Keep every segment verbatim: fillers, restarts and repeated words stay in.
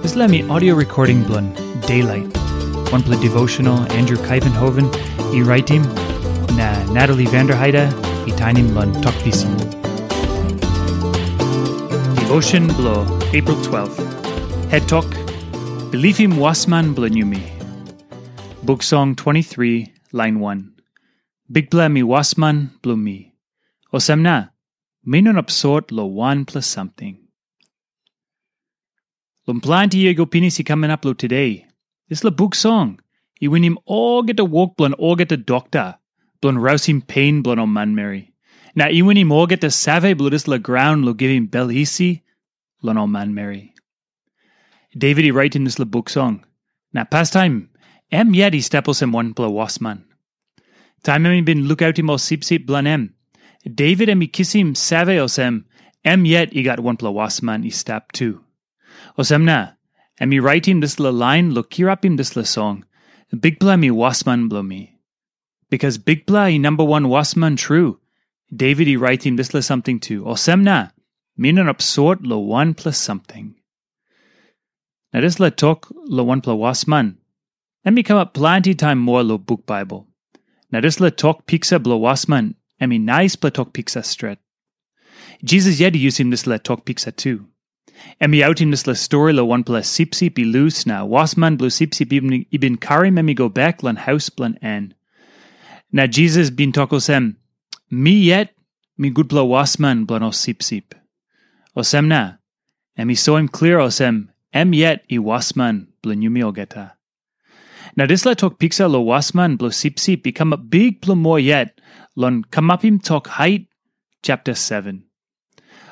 Dispela mi audio recording bilong Daylight. Wanpela devotional Andrew Kaivenhoven i raitim, na Natalie Vanderheide i tainim long Tok Pisin. Devotion bilong April twelve. Het tok, Bilipim wasman bilong yumi. Buk Song twenty-three, lain one. Bikpela mi wasman bilong mi. Olsem na, mi no inap sot long wanpela samting. Long planti yia i go pinis i kam inap long tude, dispela buk song i winim olgeta wok bilong olgeta dokta bilong rausim pen bilong ol manmeri. Na i winim olgeta save bilong dispela graun long givim bel isi long ol manmeri. Devit i raitim dispela buk song, na pastaim em yet i stap olsem wanpela wasman. Taim em i bin lukautim ol sipsip bilong em, Devit em i kisim save olsem, em yet i gat wanpela wasman i stap tu. Olsem na, em i raitim dispela lain long kirapim dispela song, Bikpela mi wasman bilong mi. Bikas Bikpela i namba wan wasman tru, Devit i raitim dispela samting tu. Olsem na, mi no inap sot long wanpela samting. Na dispela tok long wanpela wasman, em i kamap planti taim moa long buk Baibel. Na dispela tok piksa bilong wasman, em i naispela tok piksa stret. Jisas yet i yusim dispela tok piksa tu. Em i autim dispela stori long wanpela sipsip i lus, na wasman bilong sipsip i bin, i bin karim em i go bek long haus bilong en. Na Jisas bin tok olsem, "Mi yet mi gutpela wasman bilong ol sipsip." Olsem na, em i soim klia olsem, em yet i wasman bilong yumi olgeta. Na dispela tok piksa long wasman bilong sipsip i kamap bikpela moa yet long Kamapim Tok Hait, chapter seven.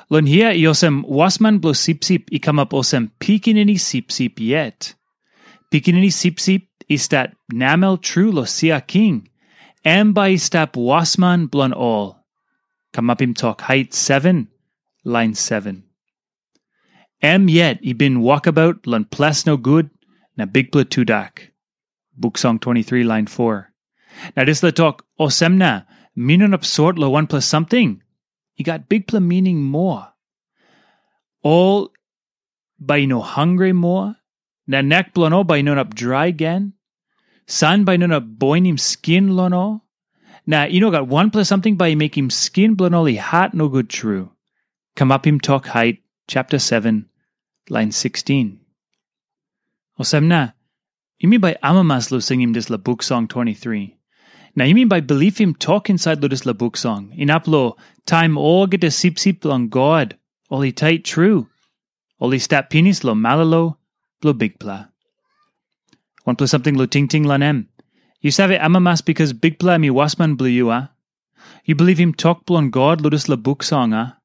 Long hia i olsem wasman bilong sipsip i kamap olsem pikinini sipsip yet. Pikinini sipsip i stap namel tru long sia king, em bai i stap wasman bilong ol. Kamapim Tok Hait seven, lain seven. Em yet i bin wokabaut long ples nogut na bikpela tudak. Buk Song twenty-three, lain four. Na dispela tok, "Olsem na, mi no inap sot long wanpela samting," i gat bikpela mining moa. Ol bai i no hangre moa, na nek bilong ol bai i no inap drai gen. San bai i no inap boinim skin long ol, na i no gat wanpela samting bai i mekim skin bilong ol i hat nogut tru. Kamapim Tok Hait, chapter seven, lain sixteen. Olsem na, yumi bai amamas long singim dispela buk song twenty-three. Na yumi bai bilipim tok insait long dispela buk song, inap long taim olgeta sipsip bilong God, ol i tait tru, ol i stap pinis long malolo bilong Bikpela. Wanpela samting long tingting long em. Yu save amamas bikas Bikpela em i wasman bilong yu, a? Yu bilipim tok bilong God long dispela buk song, a?